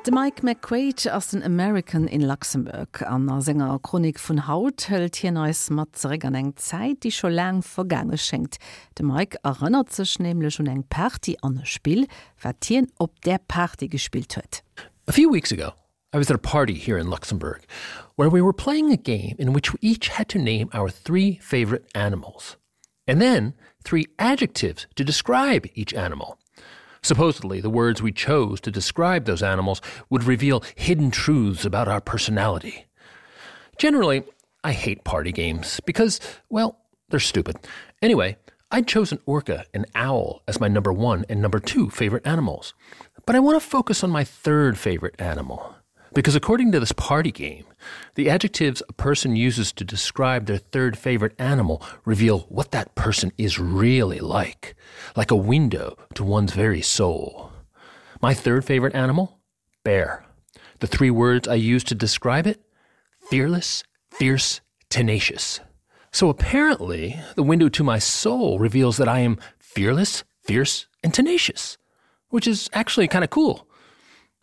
De Mike McQuaid ass den American in Luxemburg. An der Sänger Chronik vun Haut hëlt hien eis mat zeré an eng Zäit, die scho lang vergange schenkt. De Mike erinnert sech nämlich un eng Party an e Spiel, wat hien op der Party gespielt huet. A few weeks ago, I was at a party here in Luxembourg, where we were playing a game in which we each had to name our 3 favorite animals, and then 3 adjectives to describe each animal. Supposedly, the words we chose to describe those animals would reveal hidden truths about our personality. Generally, I hate party games because, well, they're stupid. Anyway, I'd chosen orca and owl as my number 1 and number 2 favorite animals. But I want to focus on my 3rd favorite animal. Because according to this party game, the adjectives a person uses to describe their 3rd favorite animal reveal what that person is really like a window to one's very soul. My 3rd favorite animal? Bear. The 3 words I use to describe it? Fearless, fierce, tenacious. So apparently, the window to my soul reveals that I am fearless, fierce, and tenacious, which is actually kind of cool.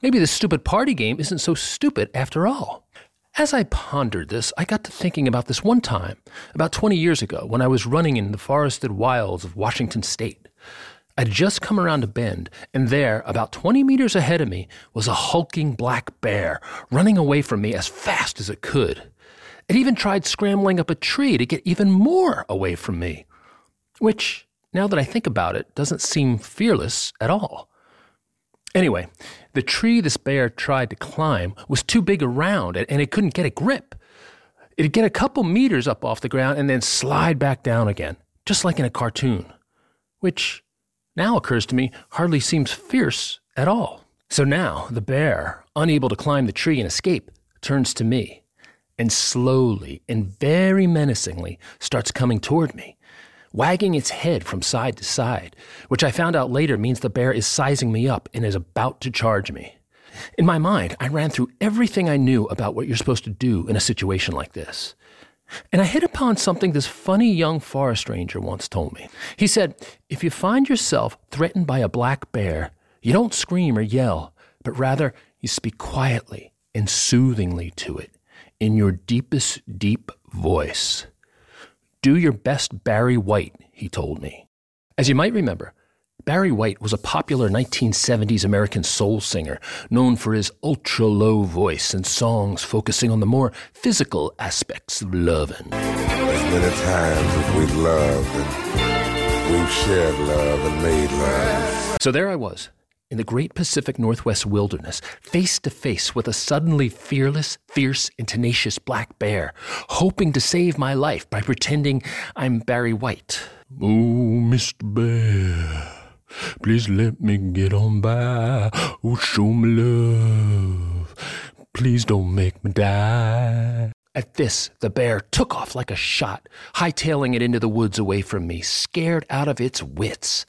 Maybe this stupid party game isn't so stupid after all. As I pondered this, I got to thinking about this one time, about 20 years ago, when I was running in the forested wilds of Washington State. I'd just come around a bend, and there, about 20 meters ahead of me, was a hulking black bear, running away from me as fast as it could. It even tried scrambling up a tree to get even more away from me, which, now that I think about it, doesn't seem fearless at all. Anyway, the tree this bear tried to climb was too big around and it couldn't get a grip. It'd get a couple meters up off the ground and then slide back down again, just like in a cartoon, which now occurs to me hardly seems fierce at all. So now the bear, unable to climb the tree and escape, turns to me and slowly and very menacingly starts coming toward me, wagging its head from side to side, which I found out later means the bear is sizing me up and is about to charge me. In my mind, I ran through everything I knew about what you're supposed to do in a situation like this. And I hit upon something this funny young forest ranger once told me. He said, if you find yourself threatened by a black bear, you don't scream or yell, but rather you speak quietly and soothingly to it in your deepest, deep voice. Do your best Barry White, he told me. As you might remember, Barry White was a popular 1970s American soul singer known for his ultra-low voice and songs focusing on the more physical aspects of loving. There's many times that we've loved and we've shared love and made love. So there I was, in the great Pacific Northwest wilderness, face to face with a suddenly fearless, fierce, and tenacious black bear, hoping to save my life by pretending I'm Barry White. Oh, Mr. Bear, please let me get on by. Oh, show me love. Please don't make me die. At this, the bear took off like a shot, hightailing it into the woods away from me, scared out of its wits.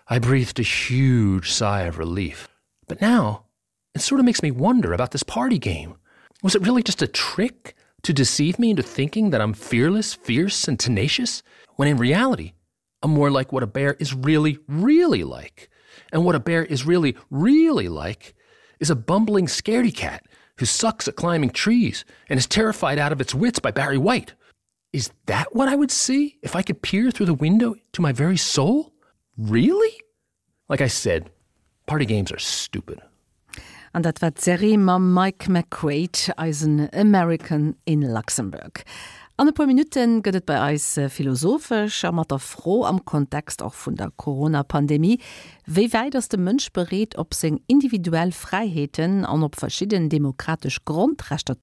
I breathed a huge sigh of relief. But now, it sort of makes me wonder about this party game. Was it really just a trick to deceive me into thinking that I'm fearless, fierce, and tenacious, when in reality, I'm more like what a bear is really, really like. And what a bear is really, really like is a bumbling scaredy cat who sucks at climbing trees and is terrified out of its wits by Barry White. Is that what I would see if I could peer through the window to my very soul? Really? Like I said, party games are stupid. An dat war Serie ma Mike McQuaid als een American in Luxemburg. An e paar Minuten gëtt et bei eis philosophisch, a mat der froh am Kontext auch vun der Corona-Pandemie, wéi weit ass de Mënsch bereet op seg individuell Freiheeten an op verschieden demokratisch Grundrechter